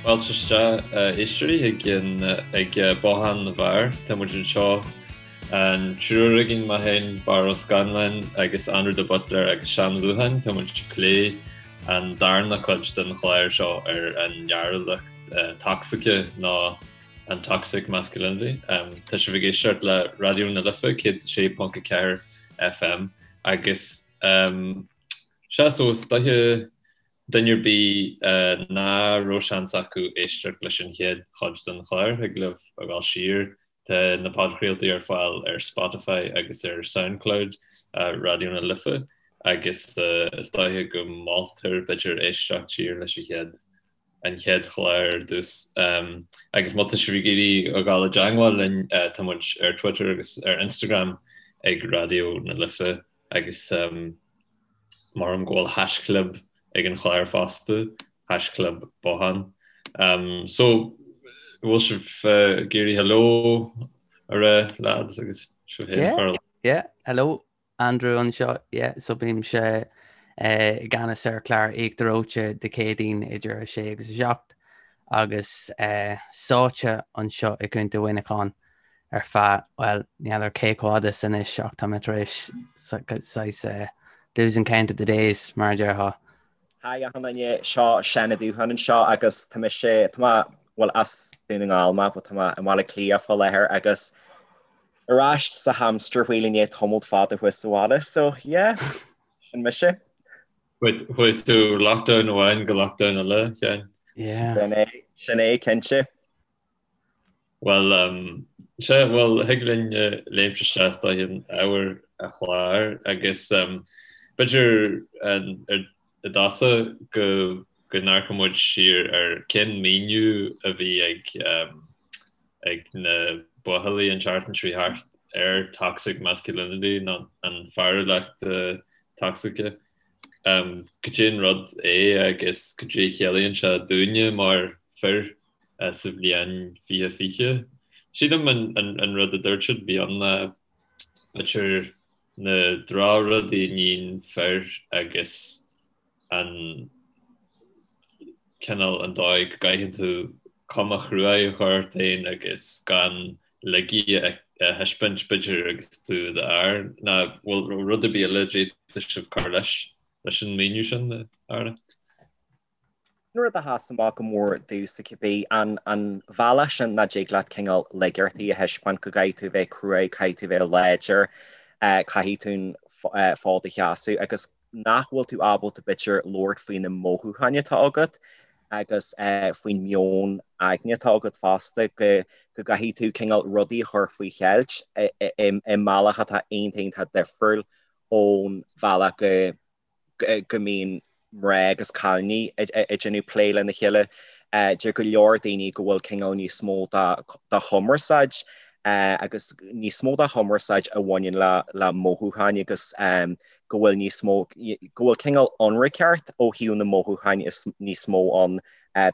Fáilte isteach a éisteoirí ag an ag Bothán na bhFear. Tá muid anseo an triúr againn, mé féin, Barra Ó Scanláin agus Andrew de Buitléar agus Seán Ó Dúcháin. Tá muid ag plé an darna cuid den chlár seo ar an fhearúlacht tocsaice nó an toxic masculinity. Tá sibh ag éisteacht le Raidió na Life 106.4 FM agus sea so is dóiche Duine ar bith ná raibh seans acu éisteacht leis an chéad chuid den chlár, thig libh a dhul siar, tá na podchraoltaí ar fáil ar Spotify agus ar Soundcloud Raidió na Life agus is dóiche go moltar b'fhéidir éisteacht siar leis an chéad an chéad chlár ar dtús. Agus má tá sibh ag iarraidh a dhul i dteangmháil linn, tá muid ar Twitter agus ar Instagram ag Raidió na Life agus Maram go bhfuil haischlib ag an chlár fosta, haischlib bothán. So, bhfuil sibh ag iarraidh hello a rá, lads, agus sibh féin a chur. Yeah, hello, Andrew anseo, yeah, so bímse i gceannas ar chlár Íochtar Reoite Dé Céadaoin idir 6 agus 7 agus sáite anseo i gContae Mhuineacháin. ar feadh, bhuel, ní fheadar cé chomh fada is anois ach tá mé tar éis saghas losing count of the days, mar a déarfá. Hi achan duine, seo Seán Ó Dúcháin anseo agus tá mise, tá mé, bhuel as Dún na nGall mé but tá mé i mBaile Átha Cliath fá láthair agus ar ais sa hamster wheel i ndiaidh tamalt fada thuas sa bhaile so yeah, sin mise. Chuaigh tú lockdown amháin go lockdown eile, Sheáin? Yeah. Sin é, sin é cinnte. Bhuel, sea, bhuel, thig linn léimt isteach is dóiche in ábhar an chláir agus b'fhéidir i dtosach go go n-amharcfaidh muid siar ar cén míniú a bhí ag ag na buachaillí an tseachtain seo thart ar toxic masculinity nó an fearúlacht tocsaice. Cad é an rud é agus cad é a chiallaíonn sé dúinne mar fir? sa bhliain 2020. Sílim an rud a dúirt siad bhí ann ná b'fhéidir na drochrudaí a níonn fir agus an cineál an dóigh go gcaithfidh tú cuma chruaidh a chur ort féin agus gan laigí a thaispeáint b'fhéidir agus tú i d'fhear. Nó bhfuil rud ar bith eile a d'fhéadfadh sibh cur leis leis an míniú sin, a fheara? An rud a sheas amach go mór domhsa cibé, an an bhealach sin nach dtig leat cineál laigeachtaí a thaispeáint, go gcaithfidh tú a bheith cruaidh, caithfidh tú a bheith láidir, caithfidh tú an fód a sheasamh agus nach bhfuil tú ábalta b'fhéidir labhairt faoi na mothúcháin atá agat agus faoin meon aigne atá agat fosta, go go gcaithfidh tú cineál rudaí a chur faoi cheilt i mbealach atá iontach iontach difriúil ón bhealach go go mbíonn mná agus cailíní ag déanamh plé lena chéile. Deir go leor daoine go bhfuil cineál níos mó de chumarsáid agus níos mó de chumarsáid a bhaineann le mothúcháin agus go bhfuil níos mó, go bhfuil cineál ionraiceacht ó thaobh na mothúcháin is níos mó ann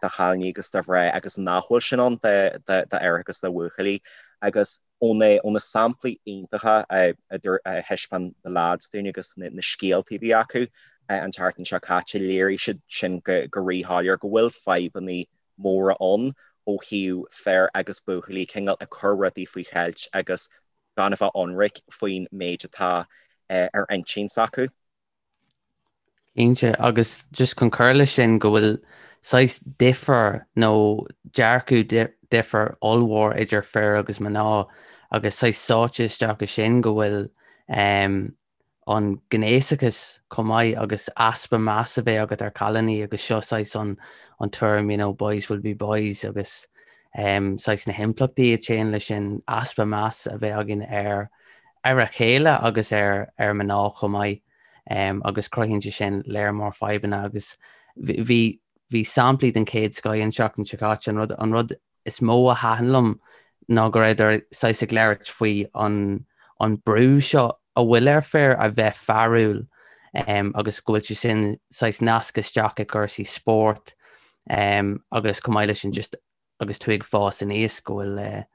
do chailíní agus do mhná agus nach bhfuil sin ann d'fhear agus do bhuachaillí. Agus ó na samplaí iontacha a thaispeáin na lads dúinn agus na scéaltaí a bhí acu an tseachtain seo caite, léirigh siad sin go ríshoiléir go bhfuil fadhbanna móra ann ó thaobh fir agus buachaillí cineál ag cur rudaí faoi cheilt agus gan a bheith ionraic faoin méid atá ar intinn s'acu. Cinnte, agus just chun cur leis sin, go bhfuil saghas difear nó dearcadh difear ollmhór idir fir agus mná agus saghas sáite isteach i sin go bhfuil an gnéasachas chomh maith agus easpa meas a bheith agat ar chailíní agus seo saghas an an tuairim you know boys will be boys agus saghas na himpleachtaí a théann leis sin, easpa meas a bheith againn ar ar a chéile agus ar ar mná chomh maith agus cruthaíonn sé sin léar mór fadhbanna agus bhí bhí samplaí den chéad scoith an tseachtain seo caite. An rud an rud is mó a thaitin liom ná go rabhadar saghas ag labhairt faoi an an brú seo a bhfuil ar fir a bheith fearúil agus go bhfuil sé sin saghas nasctha isteach i gcúrsaí spóirt agus chomh maith leis sin just agus tú ag fás aníos, go bhfuil,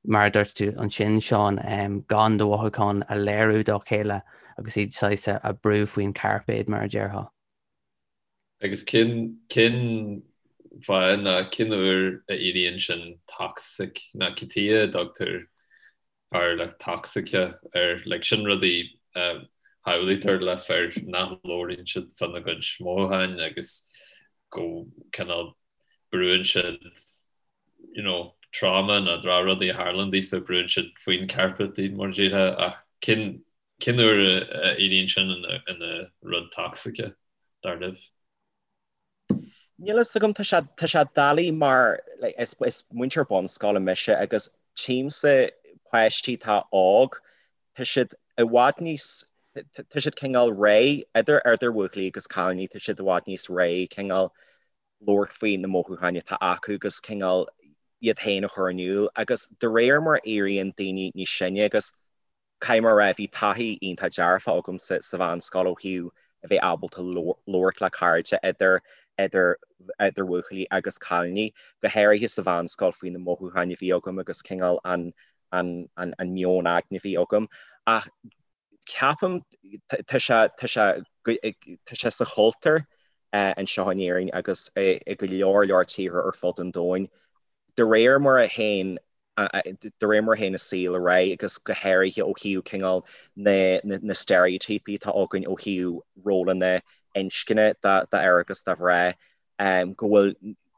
mar a dúirt tú ansin, Seán, gan do mhothúcháin a léiriú dá chéile agus iad saghas a brú faoin chairpéad, mar a déarfá. Agus cén, cén. fáth ná cén uair a éiríonn sin toxic ná cad chuige a dtugtar fearúlacht tocsaice air. Like sin rudaí a shamhlaítear le fir nach labhraíonn siad fána gcuid mothúcháin agus go cineál brúann siad you know trauma nó drochrudaí a tharlaíonn daofa, brúann siad faoin carpet iad mar a déarfá ach cén cén uair a éiríonn sin ina ina rud tocsaice dar libh? Níl a fhios agam, tá sé, tá sé doiligh mar like, is, is múinteoir bunscoile mise agus tchímse páistí atá óg, tá siad i bhfad níos, tá siad cineál réidh, idir, idir bhuachaillí agus cailíní, tá siad i bhfad níos réidh cineál labhairt faoi na mothúcháin atá acu agus cineál iad féin a chur in iúl agus de réir mar a éiríonn daoine níos sine agus Caithfidh mé a rá, bhí taithí iontach dearfach agamsa sa mheánscoil ó thaobh a bheith ábalta labhairt le cairde idir idir idir bhuachaillí agus cailíní, go háirithe sa mheánscoil faoi na mothúcháin a bhí agam agus cineál an an an an meon aigne a bhí agam. Ach ceapaim tá sé tá sé tá sé sa chultúr anseo in Éirinn agus i go leor leor tíortha ar fud an domhain de réir mar a théann de réir mar a théann an saol ar aghaidh agus go háirithe ó thaobh cineál na steiréitíopaí atá againn ó thaobh rólanna inscne d'fhear agus do mhná, go bhfuil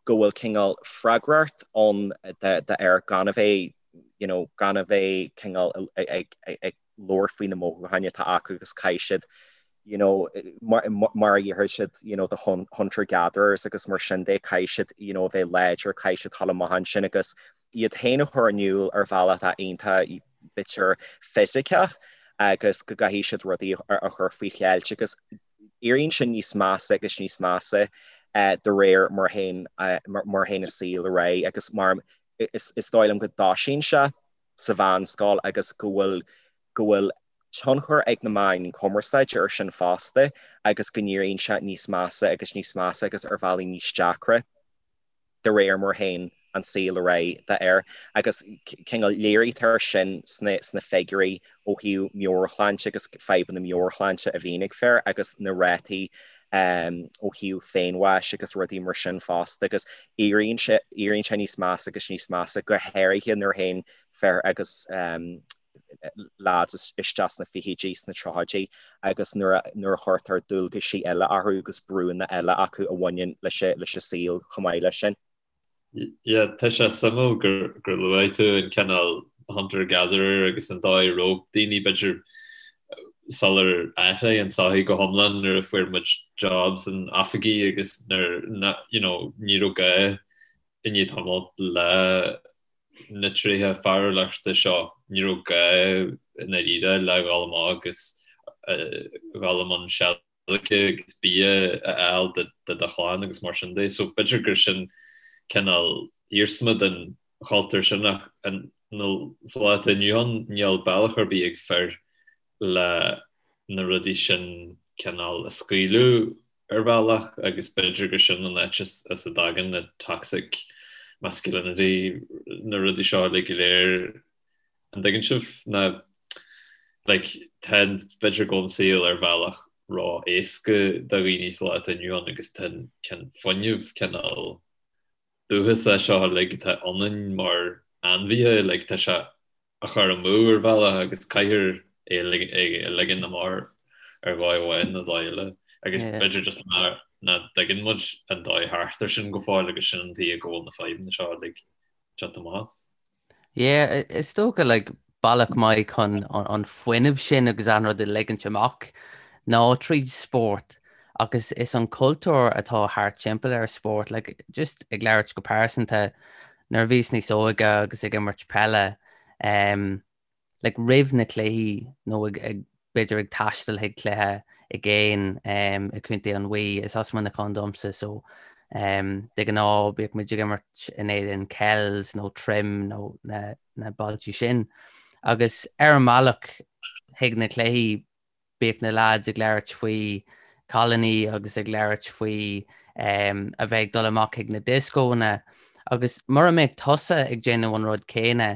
go bhfuil cineál freagracht ann d'fhear gan a bheith you know gan a bheith cineál ag ag labhairt faoi na mothúcháin atá acu agus caithfidh siad you know mar mar a déarfadh siad you know the hunter gatherers agus mar sin de caithfidh siad you know a bheith láidir caithfidh siad dul amach ansin agus iad féin a chur in iúl ar bhealach atá iontach b'fhéidir fisiceach agus go gcaithfidh siad rudaí a chur faoi cheilt agus éiríonn sin níos measa agus níos measa de réir mar a théann mar a théann an saol ar aghaidh agus mar is dóigh liom go dtosaíonn sé sa mheánscoil agus go bhfuil go bhfuil tionchar ag na meáin chumarsáide ar sin fosta agus go n-éiríonn sé níos measa agus níos measa agus ar bhealaí níos deacra de réir mar a théann an saol ar aghaidh d'fhear agus cineál léirítear sin sna sna figiúirí ó thaobh meabhairshláinte agus fadhbanna meabhairshláinte a bhíonn ag fir agus na rátaí ó thaobh féinbháis agus rudaí mar sin fosta agus éiríonn sé éiríonn sé níos measa agus níos measa go háirithe nuair a théann fir agus lads isteach sna fichidí sna tríochaidí agus nuair a nuair a chuirtear dualgaisí eile orthu agus brúnna eile acu a bhaineann leis leis an saol chomh maith leis sin. Yeah, tá sé suimiúil gur gur luaigh tú an cineál hunter gatherer agus an dóigh a raibh daoine b'fhéidir sular athraigh an tsochaí go hiomlán nuair a fuair muid jobs in oifigí agus nuair you know ní raibh gá i ndiaidh tamaill le na tréithe fearúlachta seo ní raibh gá i ndáiríre le dhul amach agus dhul i mbun seilge agus bia a fháil do do chlann agus mar sin de. So b'fhéidir gur sin cineál iarsma den chultúr sin ach sa lá atá inniu ann níl bealach ar bith ag fir le na rudaí sin cineál a scaoileadh ar bhealach agus b'fhéidir gur sin an áit as a dtagann na toxic masculinity na rudaí seo uilig go léir. An dtuigeann sibh? Ná like tá b'fhéidir go bhfuil an saol ar bhealach ró-éasca do dhaoine sa lá atá inniu ann agus tá an fuinneamh cineál dúchasach seo uilig atá ionainn mar ainmhithe like tá sé á chur amú ar bhealach agus caithfear é a ligean amach ar dhóigh amháin nó dóigh eile agus b'fhéidir just nach dtuigeann muid an dóigh thart ar sin go fóill agus sin an tuige go bhfuil na fadhbanna seo uilig ag teacht amach as. Yeah, is dócha like bealach maith chun an fuinneamh sin agus an rud a ligint amach ná tríd spórt agus is an cultúr atá thart timpeall ar spórt, like just ag labhairt go pearsanta, nuair a bhíos níos óige agus ag imirt peile, um, like roimh na cluichí nó ag, ag b'fhéidir ag taisteal chuig cluiche i gcéin um, i gContae an Mhí, is as Muineachán domsa so um, de ghnáth bíodh muid ag imirt in éadan Kells nó Trim nó na, na bailtí sin. Agus ar an mbealach chuig na cluichí bíodh na lads ag labhairt faoi cailíní agus ag labhairt faoi um, a bheith ag dul amach chuig na dioscónna agus mura mbeadh tusa ag déanamh an rud céanna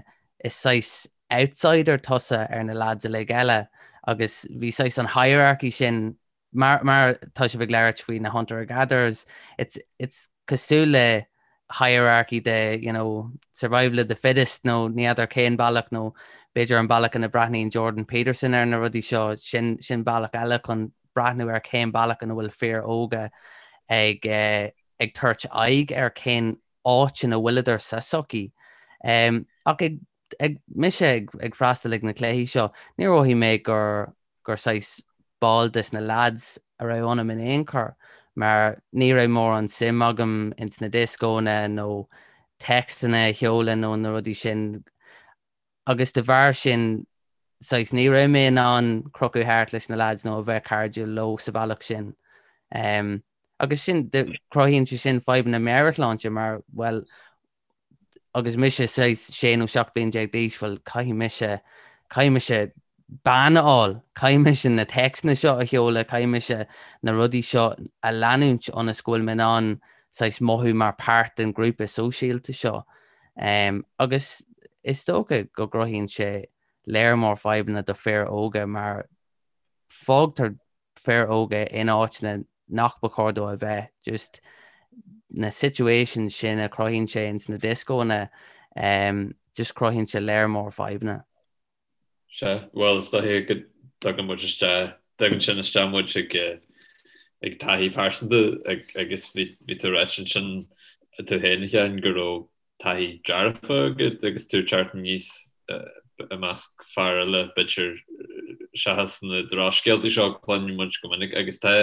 is saghas outsider tusa ar na lads uilig eile agus bhí saghas an hierarchy sin. Mar mar tá sibh ag labhairt faoi na hunter gatherers, it's it's cosúil le hierarchy de you know, survival of the fittest nó ní fheadar cén bealach nó b'fhéidir an bealach ina breathnaíonn Jordan Peterson ar na rudaí seo sin sin bealach eile chun breathnú ar cén bealach ina bhfuil fir óga ag eh, ag tabhairt aghaidh ar cén áit ina bhfuileadar sa sochaí. Um, ach ag, ag mise ag, ag freastal ag na cluichí seo, níor mhothaigh mé gur gur saghas ball des na lads a raibh ionam in aon chor, mar ní raibh mórán suim agam ins na dioscónna nó téacsanna a sheoladh nó na rudaí sin agus de bharr sin saghas ní raibh mé in ann crochadh thart leis na lads nó a bheith cairdiúil leo sa bhealach sin. Um, agus sin, cruthaíonn sé sin fadhbanna meabhairshláinte mar, bhuel, agus mise saghas 16 nó 17 bliain d'aois, bhuel, caithfidh mise, caithfidh mise bean a fháil, caithfidh mise na téacsanna seo a sheoladh, caithfidh mise na rudaí seo a leanúint ionas go bhfuil mé in ann saghas mothú mar páirt den ghrúpa sóisialta seo. Um, agus is dócha go gcruthaíonn sé léar mór fadhbanna do fir óga mar fágtar fir óga in áiteanna nach ba chóir dóibh a bheith, just na situations sin a chruthaíonn sé ins na dioscónna, um, just cruthaíonn sé léar mór fadhbanna. Sea, bhuel is dóiche go dtugann muid isteach, dtugann sin isteach muid ag ag taithí pearsanta agus bhí bhí tú ag ráit ansin tú féin a Sheáin go raibh taithí dearfa agat agus tú ag teacht aníos i measc fear eile, b'fhéidir, seachas na drochscéaltaí seo a chluineann muid go minic agus tá,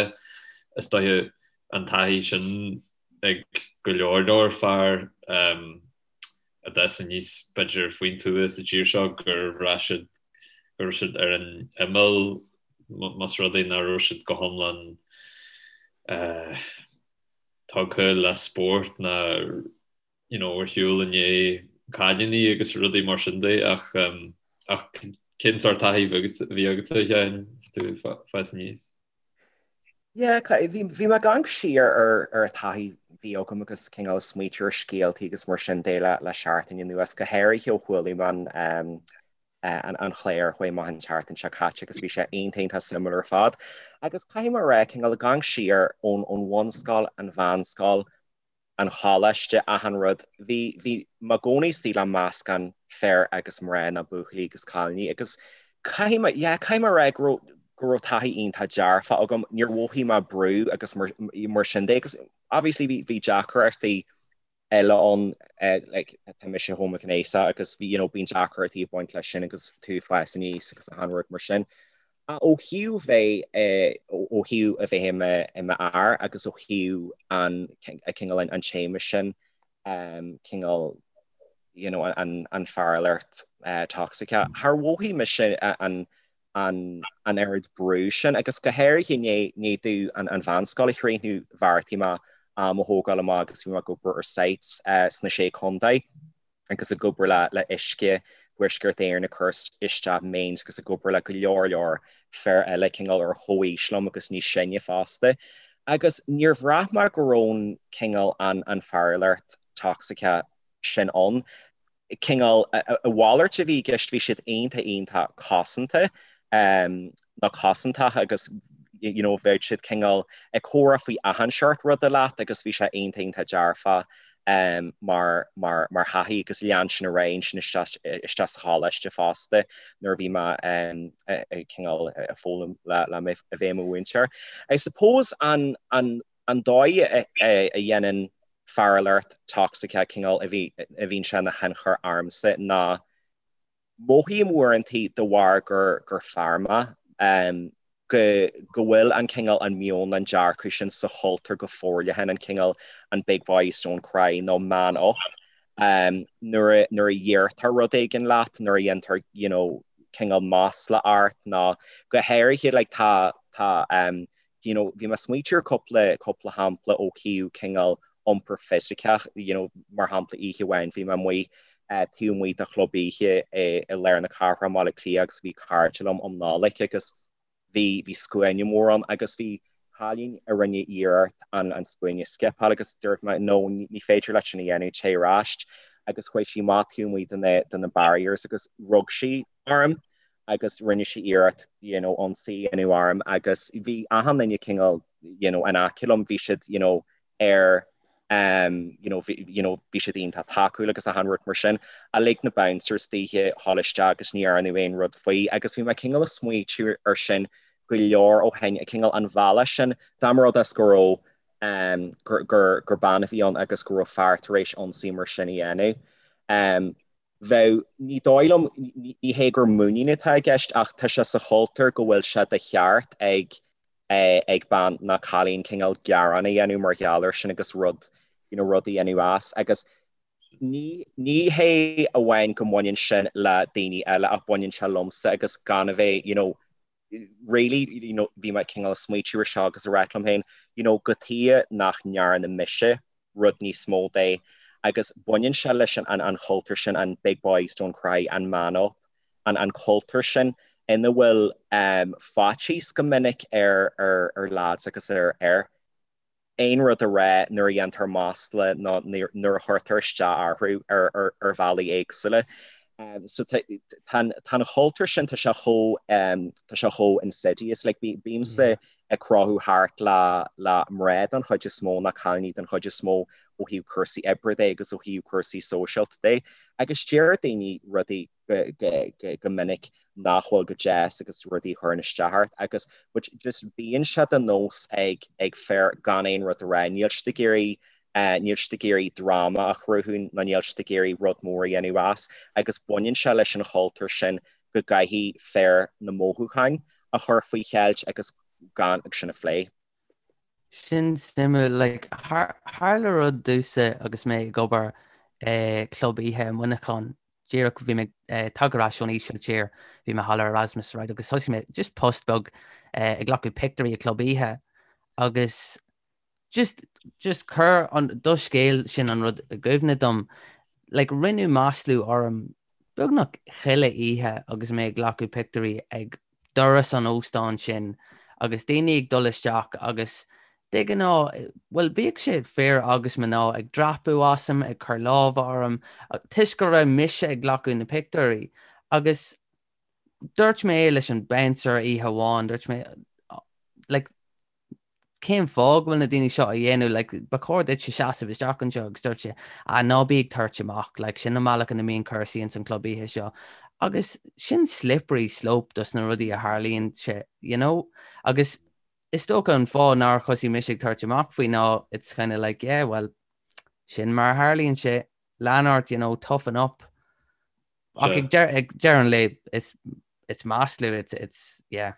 is dóiche, an taithí sin ag go leor leor fear a d'fhás aníos, b'fhéidir, faoin tuath sa tír seo gur bhraith siad go raibh siad ar an imeall más rud é nach raibh siad go hiomlán tugtha le spórt ná you know ar shiúl i ndiaidh cailíní agus rudaí mar sin de ach ach cén sórt taithí a bhí agatsa a Sheáin is tú ag fás aníos? Yeah, bhí bhí mé ag amharc siar ar ar an taithí a bhí agam agus cineál smaoitiú ar scéaltaí agus mar sin de le le seachtain anuas, go háirithe ó chuala mé an an chlár a chuaigh amach an tseachtain seo caite agus bhí sé iontach iontach suimiúil ar fad. Agus caithfidh mé a rá, cineál ag amharc siar ón ón bhunscoil, an mheánscoil, an choláiste, achan rud, bhí bhí mé i gcónaí istigh le meascán fir agus mná nó buachaillí agus cailíní agus caithfidh mé, yeah, caithfidh mé a rá go raibh go raibh taithí iontach dearfach agam, níor mhothaigh mé brú agus mar mar sin de agus obviously bhí bhí deacrachtaí eile ann, like tá mise homaighnéasach agus you know bíonn deacrachtaí ag baint leis sin agus tú ag fás aníos agus achan rud mar sin. Ach ó thaobh bheith ó thaobh a bheith i mo i mo fhear agus ó thaobh an cineál an téama sin cineál you know an an fearúlacht tocsaiceach, char mhothaigh mise an an an oiread brú sin agus go háirithe i ndiaidh domh an an mheánscoil a chríochnú bheartaigh mé am a thógáil amach agus bhí mé ag obair ar sites sna Sé Chontae agus ag obair le le Uisce Thuaisceart Éireann ag cur isteach mains agus ag obair le go leor leor fir eile cineál ar chomhaois liom agus níos sine fosta agus níor bhraith mé go raibh an cineál an an fearúlacht tocsaiceach sin ann. cineál, a mhalairt a bhí i gceist, bhí siad iontach iontach cosanta nó cosantach agus you know bheadh siad cineál ag comhrá faoi achan seort ruda leat agus bhí sé iontach iontach dearfach mar mar mar thaithí agus lean sin ar aghaidh ansin isteach isteach sa choláiste fosta nuair a bhí mé ag cineál ag foghlaim le le a bheith i mo mhúinteoir. I suppose an an an dóigh a dhéanann fearúlacht tocsaiceach cineál a bhíonn sé ina thionchar ormsa ná mothaím uaireantaí de bharr gur fear mé go go bhfuil an cineál an meon an dearcadh sin sa chultúr go forleathan an cineál an big boys don't cry nó man up nuair a nuair a deirtear rud éigin leat nuair a dhéantar you know cineál masla ort nó go háirithe like tá tá you know, bhí mé ag smaoitiú ar cúpla, cúpla shampla ó thaobh cineál iompar fisiceach, you know, mar shampla oíche amháin bhí mé amuigh taobh amuigh de chlub oíche i, i lár na cathrach i mBaile Átha Cliath agus bhí cairde liom um Nollaig agus bhí, bhí scuaine mór ann agus bhí cailín a rinne iarracht an, an scuaine a scipeáil agus dúirt mé no, ní féidir leat sin a dhéanamh, téigh ar ais agus chuaigh sí amach taobh amuigh de na, de na barriers agus rug sí orm. agus rinne sí iarracht you know ionsaí a dhéanamh orm agus bhí achan duine cineál you know in aice liom, bhí siad you know ar um you know bhí you know bhí siad iontach tacúil agus achan rud mar sin ach lig na bouncers daoithe dhul isteach agus ní dhearnadh aon rud faoi agus bhí mé cineál ag smaoitiú ar sin go leor ó shin, cineál an bhealach sin dá mba rud é go raibh um gur gur gur bean a bhí ann agus go raibh fear tar éis ionsaí mar sin a dhéanamh. Um bheadh, ní dóigh liom, ní hé gur muinín atá i gceist ach tá sé sa chultúr go bhfuil sé de cheart ag ag bean nó cailín cineál gearán a dhéanamh mar gheall air sin agus rud, you know, rud a dhéanamh as agus ní, ní hé amháin go mbaineann sin le daoine eile ach baineann sé liomsa agus gan a bheith, you know, really, you know, bhí mé cineál ag smaoitiú ar seo agus ag rá liom féin, you know, cad chuige nach ndearna mise rud níos mó de agus baineann sé leis an, an, an chultúr sin, an big boys don't cry, an man up, an, an cultúr sin ina bhfuil um, faitíos go minic ar, ar, ar lads agus ar fhir. aon rud a rá nuair a dhéantar masla nó nuair a chuirtear isteach orthu ar bhealaí éagsúla. So tá an cultúr sin, tá sé chomh, tá sé chomh insidious. Like bímse ag crochadh thart le le mná den chuid is mó, nó cailíní den chuid is mó ó thaobh cúrsaí oibre de agus ó thaobh cúrsaí sóisialta de agus deir daoine rudaí go minic nach bhfuil go deas agus rudaí a chuireann isteach ort agus but just bíonn sé de nós ag ag fir gan aon rud a rá, níl siad ag iarraidh níl siad ag iarraidh dráma a chruthú nó níl siad ag iarraidh rud mór a dhéanamh as agus baineann sé leis an chultúr sin go gcaithfidh fir na mothúcháin a chur faoi cheilt agus gan sin a phlé. Sin suimiúil, like, tharla rud domhsa agus mé ag obair i club oíche i Muineachán, díreach bhí mé ag tagtha ar ais ón Ísiltír, bhí mé thall ar Erasmus, right, agus thosaigh mé just post beag ag glacadh pictiúirí i club oíche agus just, just chuir an, do scéal sin an rud i gcuimhne dom, like, rinneadh maslú orm beagnach chuile oíche agus mé ag glacadh pictiúirí ag doras an óstáin sin agus daoine ag dul isteach agus de ghnáth, bhuel, bhíodh sé fir agus mná ag dreapadh asam, ag cur lámha orm, toisc go raibh mise ag glacadh na pictiúirí. Agus dúirt mé leis an bouncer oíche amháin, dúirt mé, like, cén fáth go bhfuil na daoine seo á dhéanamh, like, ba chóir duitse seasamh isteach anseo agus dúirt sé, ah, ná bí ag tabhairt amach, like, sin an bealach ina mbíonn cúrsaí ins an club oíche seo. Agus sin slippery slope dos na rudaí a tharlaíonn sé, you know? Agus is dócha an fáth nár thosaigh mise ag tabhairt amach faoi ná it's kind of like, yeah, well, sin mar a tharlaíonn sé, lean ort, you know, toughen up. Ach ag deireadh an lae, it's, it's maslú, it's, it's, yeah.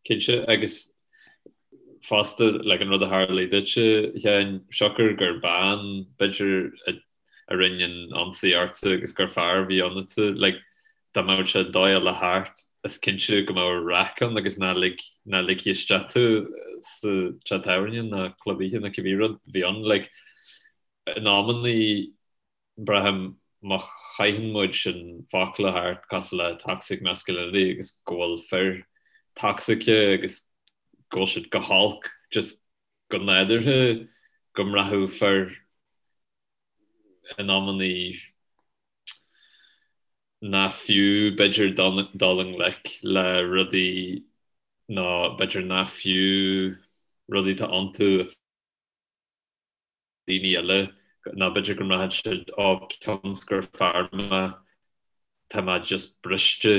Cinnte, agus fosta, like, an rud a tharlaigh duitse, a Sheáin, siocair gur bean, b'fhéidir, a rinne an ionsaí ortsa agus gur fear a bhí ionatsa, like, dá mbeadh sé dóigh eile thart, is cinnte go mbeadh raic ann agus ná lig, ná ligfí isteach tú sa teach tábhairne ná club oíche ná cibé rud a bhí ann, like, in amannaí, Braithim má chaitheann muid sin focla thart cosúil le toxic masculinity agus go bhfuil fir toxic agus go bhfuil siad go holc just go nádúrtha go mbraitheadh fir in amannaí nach fiú b'fhéidir dul i ngleic le rudaí nó b'fhéidir nach fiú rudaí atá iontu a daoine eile nó b'fhéidir go mbraitheann siad ó cionn is gur fear mé tá mé just briste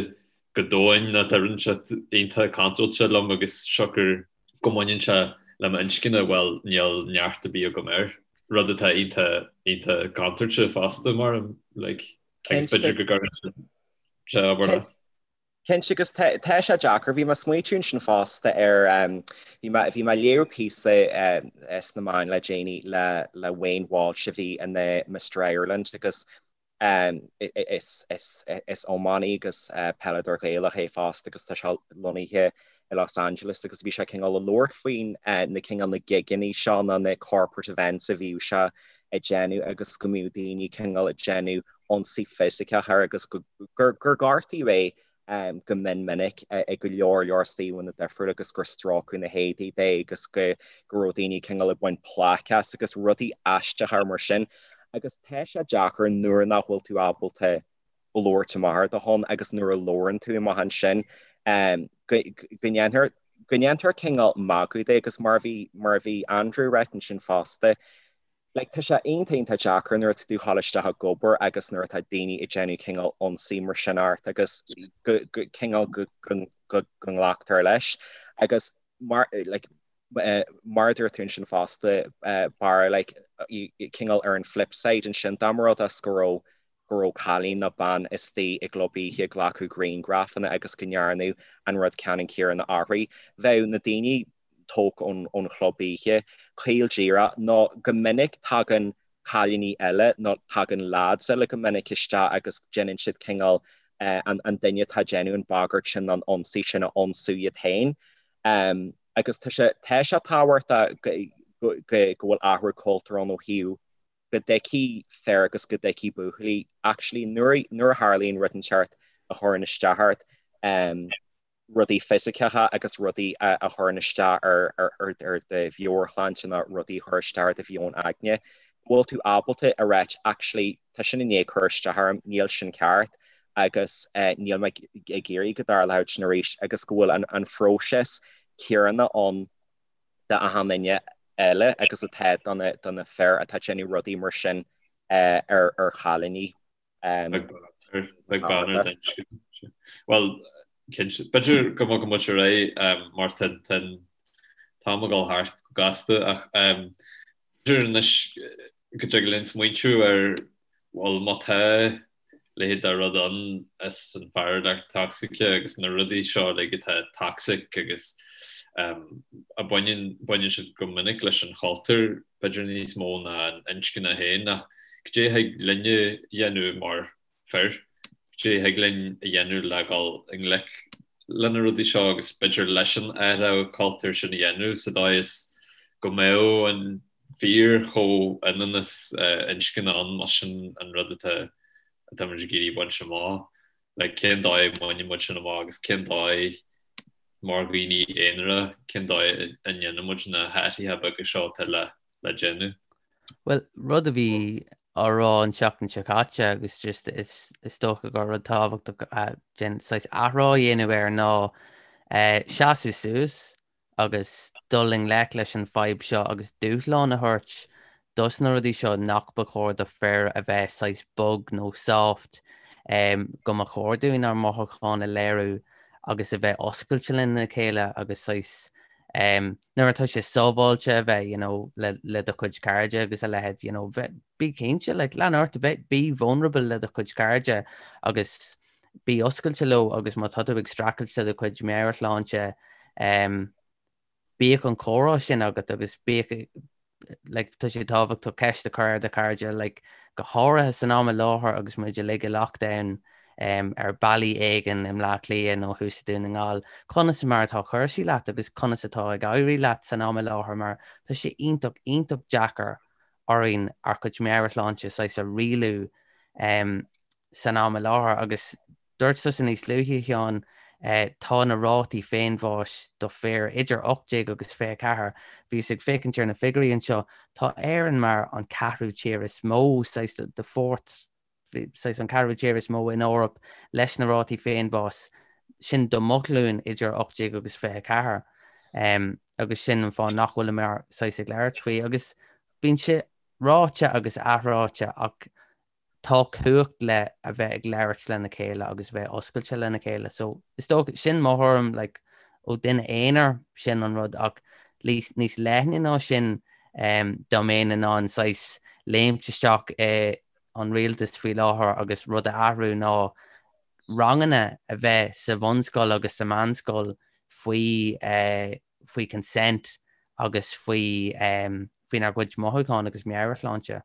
go domhain nó tá rud inteacht iontach contúirteach liom agus siocair go mbaineann sé le m'inscne bhuel níl neart ar bith agam air. Rud atá iontach iontach contúirteach fosta mar like agus b'fhéidir go gcuireann sé obair leat. Cinnte, agus tá sé deacair. Bhí mé ag smaoitiú ansin fosta ar, bhí mé, bhí mé ag léamh píosa sna meáin le déanaí le, le Wayne Walsh a bhí ina Mister Ireland agus is, is, is iománaí agus peileadóir Gaelach é fosta agus tá sé lonnaithe i Los Angeles agus bhí sé cineál ag labhairt faoin na cineál na gigeanna seo nó na corporate events a bhíodh sé ag déanamh agus go mbíodh daoine cineál ag déanamh ionsaí fisiceach air agus gur gortaíodh é go mion minic i go leor leor suíomhanna difriúla agus gur stróiceadh na héadaí de agus go raibh daoine cineál ag baint plaic as agus rudaí aisteacha mar sin. Agus tá sé deacair nuair nach bhfuil tú ábalta. labhairt amach ar do shon agus nuair a labhrann tú amach ansin go ndéantar go ndéantar cineál magadh de agus mar a bhí mar a bhí Andrew ag ráit ansin fosta like tá sé iontach iontach deacair nuair atá tú ag ghabháil isteach ag obair agus nuair atá daoine ag déanamh cineál ionsaí mar sin ort agus go go cineál go go go go nglactar leis agus mar like mar a dúirt tú ansin fosta Barra like cineál ar an flip side ansin dá mba rud é go raibh go raibh cailín nó bean istigh i gclub oíche ag glacadh grianghrafanna agus go ndearnadh an rud ceannann céanna uirthi. Bheadh na daoine tógtha ón chlub oíche caol díreach nó go minic tagann cailíní eile nó tagann lads eile go minic isteach agus déanann siad cineál an duine atá ag déanamh an bagairt sin nó an ionsaí sin a ionsú iad féin. Agus tá sé tá sé tábhachtach go go bhfuil athrú cultúir ann ó thaobh go dtuigfidh fir agus go dtuigfidh buachaillí actually nuair nuair a tharlaíonn rud inteacht a chuireann isteach ort, rudaí fisiceacha agus rudaí a chuireann isteach ar ar ar ar do mheabhairshláinte nó rudaí a chuir isteach ar do mheon aigne, go bhfuil tú ábalta a ráit actually tá sin i ndiaidh cur isteach orm, níl sin ceart agus níl mé ag iarraidh go dtarlódh sin arís agus go bhfuil an an phróiseas céanna ann d'achan duine eile agus atá do na do na fir atá ag déanamh rudaí mar sin ar ar chailíní. Bheadh bean ar duine. Bhuel, cinnte, b'fhéidir go mbogann muid ar aghaidh mar tá an t-am ag dul thart go gasta ach b'fhéidir anois go dtig linn smaointiú ar bhuel má tá leithéid de rud ann is an fhearúlacht tocsaice agus na rudaí seo uilig atá toxic agus a baineann baineann siad go minic leis an chultúr b'fhéidir níos mó ná an inscne féin ach cad é a thig linne a dhéanamh mar fir, cad é a thig linn a dhéanamh le dhul i ngleic le na rudaí seo agus b'fhéidir leis an athrú cultúir sin a dhéanamh sa dóigh is go mbeadh an fíor-chomhionannas inscne ann más sin an rud atá atá muid ag iarraidh baint amach. Like cén dóigh a mbaineann muid sin amach agus cén dóigh mar dhaoine aonara cén dóigh a ndéanann muid na hathruithe beaga seo atá le le déanamh. Bhuel, rud a bhí á rá an tseachtain seo caite agus just is is dócha gur rud tábhachtach den saghas athrá a dhéanamh air ná seasamh suas agus dul i ngleic leis an fadhb seo agus dúshlán a thabhairt dos na rudaí seo nach ba chóir do fir a bheith saghas bog nó soft, go mba chóir dúinn ár mothúcháin a léiriú agus a bheith oscailte lena chéile agus saghas nuair atá sé sábháilte a bheith you know le le do chuid cairde agus a leithéid you know bheith bí cinnte like lean ort a bheith be vulnerable le do chuid cairde agus bí oscailte leo agus má tá tú ag streachailt le do chuid meabhairshláinte, bíodh an comhrá sin agat agus bíodh, like, tá sé tábhachtach ceist a chur ar do chairde, like, go háirithe san am i láthair agus muid uilig i lockdown ar bealaí éigin i mBleá Cliath nó thuas i Dún na nGall, conas mar atá cúrsaí leat agus conas atá ag éirí leat san am i láthair mar tá sé iontach, iontach deacair orainn ár gcuid meabhairshláinte saghas a rialú san am i láthair agus dúirt tusa níos luaithe, a Sheáin, tá na rátaí féinbháis do fir idir 18 agus 24, bhíos ag féachaint ar na figiúirí anseo, tá Éirinn mar an ceathrú tír is mó, saghas the fourth, saghas an ceathrú tír is mó in Eoraip leis na rátaí féinbháis sin do mo ghlúin idir 18 agus 24 agus sin an fáth nach bhfuileamar saghas ag labhairt faoi agus bíonn sé ráite agus athráite ach tá cumhacht le a bheith ag labhairt lena chéile agus a bheith oscailte lena chéile. So is dócha sin mo thuairim like, ó duine aonair sin an rud ach níos leithne ná sin um, dá mbeinn in ann saghas léimt isteach i an rialtas faoi láthair agus rud a athrú ná ranganna a bheith sa bhunscoil agus sa meánscoil faoi eh, faoi consent agus faoi um, faoinár gcuid mothúchán agus meabhairshláinte.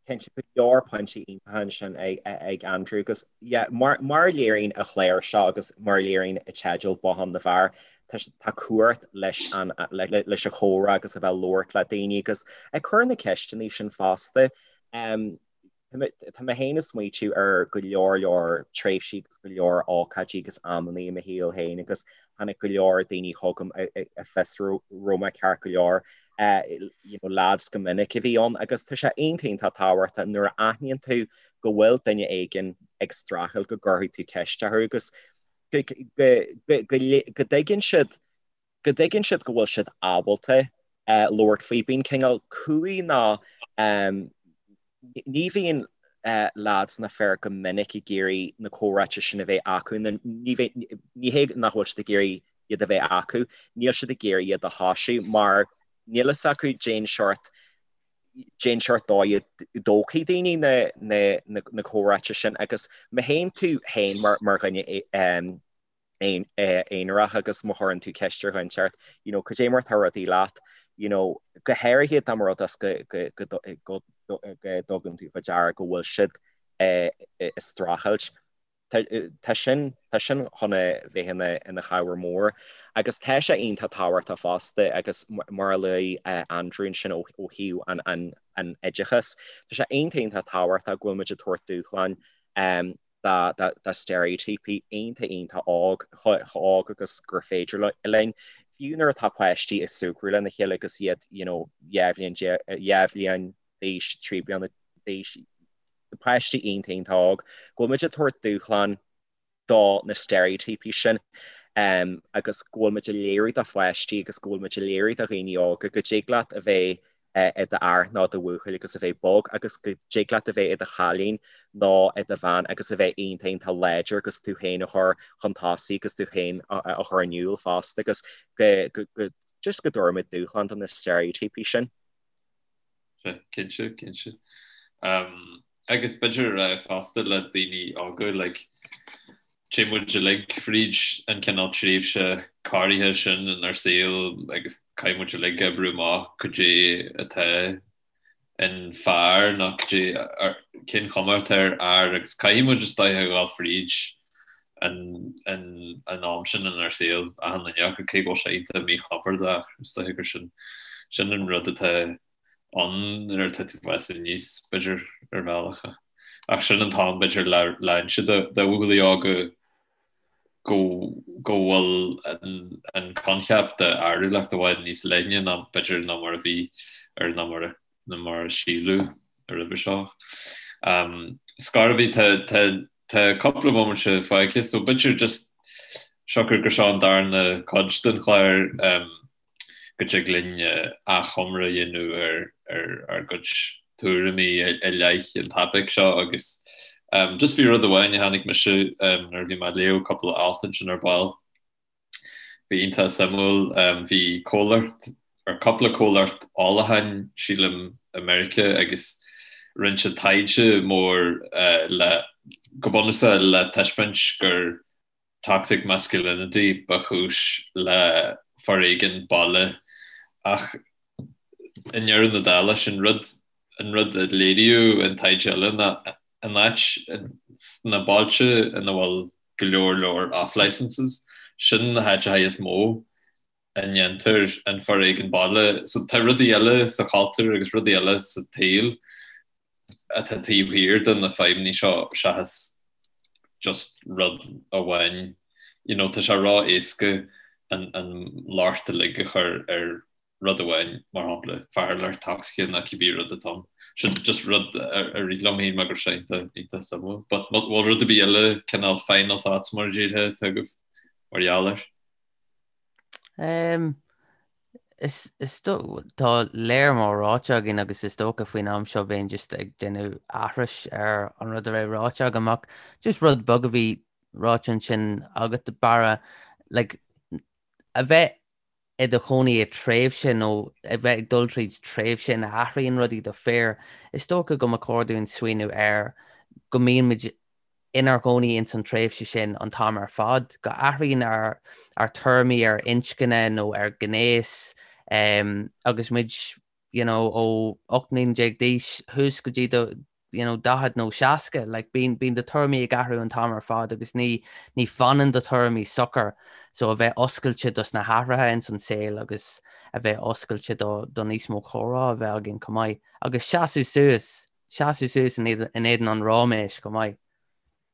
Cinnte, go leor pointí iontacha ansin ag Andrew agus yeah, mar mar a léiríonn an chlár seo agus mar a léiríonn an teideal Bothán na bhFear, tá tá cumhacht leis an leis an chomhrá agus a bheith ag labhairt le daoine agus ag cur na ceisteanna sin fosta. Um, Tá mé féin ag smaoitiú ar go leor leor tréimhsí agus go leor ócáidí agus amannaí i mo shaol féin agus tháinig go leor daoine chugam ag fiosrú raibh mé ceart go leor, you know, lads go minic a bhí ann agus tá sé iontach iontach tábhachtach nuair a aithníonn tú go bhfuil duine éigin. ag streachailt go gcuirfidh tú ceist orthu agus go go dtuigeann siad go dtuigeann siad go bhfuil siad ábalta labhairt faoi. Bíonn cineál cumhaidh nó ní bhíonn leaids ná fir go minic ag iarraidh na comhráite sin a bheith acu nó ní ní hé nach bhfuil siad ag iarraidh iad a bheith acu, níl siad ag iarraidh iad a thoisiú mar níl fhios acu cén seort cén seort dóigh a dtógfaidh daoine na na na comhráite sin agus má théann tú féin mar mar dhuine aonarach agus má chuireann tú ceist ar dhuine inteacht, you know, cad é mar atá rudaí leat, you know, go háirithe dá mba rud é go go go go go dtugann tú faoi deara go bhfuil siad ag streachailt. Tá sin tá sin chun a bheith ina ina chabhair mhór agus tá sé iontach tábhachtach fosta agus mar a luaigh Andrew ansin ó ó thaobh an an an oideachais, tá sé iontach iontach tábhachtach go bhfuil muid ag tabhairt dúshláin do steiréitíopaí iontach iontach óg, chomh hóg agus gur féidir linn. Fiú nuair atá páistí ag súgradh lena chéile agus iad you know 2 bhliain 2 bhliain d'aois, 3 bliana d'aois, páistí iontach iontach óg, go bhfuil muid ag tabhairt dúshlán do na steiréitíopaí sin agus go bhfuil muid ag léiriú do pháistí agus go bhfuil muid ag léiriú do dhaoine óga go dtig leat a bheith i d'fhear nó do bhuachaill agus a bheith bog agus go dtig leat a bheith i do chailín nó i do bhean agus a bheith iontach iontach láidir agus tú féin a chur chun tosaigh agus tú féin a chur in iúl fosta agus go go just go dtabharfaimid dúshlán do na steiréitíopaí sin. Cinnte, cinnte. Agus b'fhéidir fosta le daoine óga, like, téann muid uilig fríd an cineál tréimhse corraithe sin inár saol agus caithfidh muid uilig oibriú amach cad é atá in fear nó cad é cén chuma atá ar fhear agus caithfidh muid is dóiche a dhul fríd an an am sin inár saol achan duine acu cé go bhfuil sé iontach míchompordach is dóiche gur sin sin an rud atá ann nuair atá tú ag fás aníos b'fhéidir ar bhealach ach sin an t-am b'fhéidir le le inse do do bhuachaillí óga go go bhfuil an an coincheap de fhearúlacht i bhfad níos leithne ná b'fhéidir ná mar a bhí ar ná mar a ná mar a síleadh roimhe seo. Scor ar bith tá tá tá cúpla bomaite fágtha so b'fhéidir just siocair gur seo an darna cuid den chlár go dtig linn achoimre a dhéanamh ar ar ár gcuid tuairimí i leith an topaic seo agus just bhí rud amháin a chonaic mise nuair a bhí mé ag léamh cúpla alt ansin ar ball. Bhí iontach suimiúil. Bhí comhlacht, or cúpla comhlacht ólacháin sílim i Meiriceá agus rinne siad taighde mór le, go bunúsach le taispeáint gur toxic masculinity ba chúis le foréigean baile ach i ndeireadh na dála sin rud an rud a léiríodh in taighde eile ná an áit sna bailte ina bhfuil go leor leor off licenses sin na háiteacha is mó a ndéantar an foréigean baile. So tá rudaí eile sa chultúr agus rudaí eile sa tsaol atá taobh thiar de na fadhbanna seo seachas just rud amháin. You know, tá sé ró-éasca an, an locht uilig a chur ar rud amháin, mar shampla, fearúlacht toxic nó cibé rud atá ann. Sin just rud a rith liom féin mar go raibh sé iontach, iontach suimiúil. But bhfuil rud ar bith eile, cineál final thoughts mar a déarfá, atá agaibh mar gheall air? Is tá léar mór ráite againn agus is dócha faoin am seo bheinn just ag déanamh aithris ar an rud a raibh ráite agam ach just rud beag a bhí ráite ansin agat Barra, like, a bheith i do chónaí i tréimhse nó a bheith ag dul tríd tréimhse ina athraíonn rudaí do fir, is dócha go mba chóir dúinn smaoineamh ar go mbíonn muid inár gcónaí ins an tréimhse sin an t-am ar fad, go athraíonn ár ár tuairimí ar inscne nó ar ghnéas agus muid you know ó 18 mbliana d'aois thuas go dtí do you know 40 nó 60, like bíonn bíonn do tuairimí ag athrú an t-am ar fad agus ní ní fanann do tuairimí socair so a bheith oscailte dos na hathruithe ins an saol agus a bheith oscailte do do níos mó comhrá a bheith againn chomh maith agus seasamh suas Seasamh suas in éadan an ráiméis chomh maith.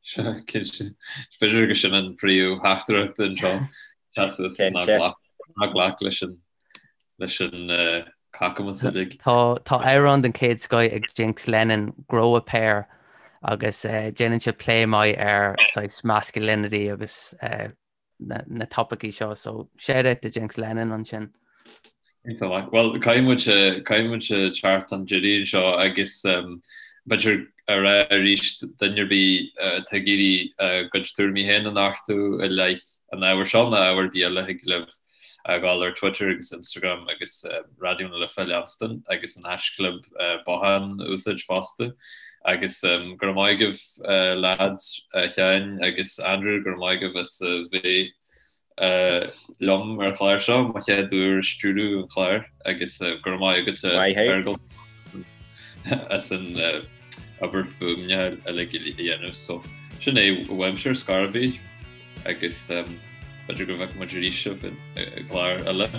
Sea, cinnte. B'fhéidir gur sin an príomh-theachtaireacht anseo, seasamh suas ná glac leis an leis an cacamas uilig. Tá tá amhrán den chéad scoith ag Jinx Lennon, Grow a Pair, Agus déanann sé plé maith ar saghas masculinity agus na topaicí seo, so shout out do Jinx Lennon ansin. Iontach maith. Bhuel, caithfidh muid, caithfidh muid teacht chun deiridh anseo agus b'fhéidir a rá arís duine ar bith atá ag iarraidh a gcuid tuairimí féin a nochtadh i leith an ábhair seo nó ábhar ar bith eile thig libh a ghabháil ar Twitter agus Instagram agus Raidió na Life a leanstan agus an haischlib bothán a úsáid fosta. Agus go raibh maith agaibh lads, a Sheáin agus Andrew, go raibh maith agaibh as a bheith liom ar an chlár seo, mo chéad uair ag stiúradh an chláir agus go raibh maith agat Fergal as an obair fuaimne uilig a dhéanamh. So sin é uaimse ar scor ar bith. Agus b'fhéidir go bhfeicfidh muid arís sibh i gclár eile.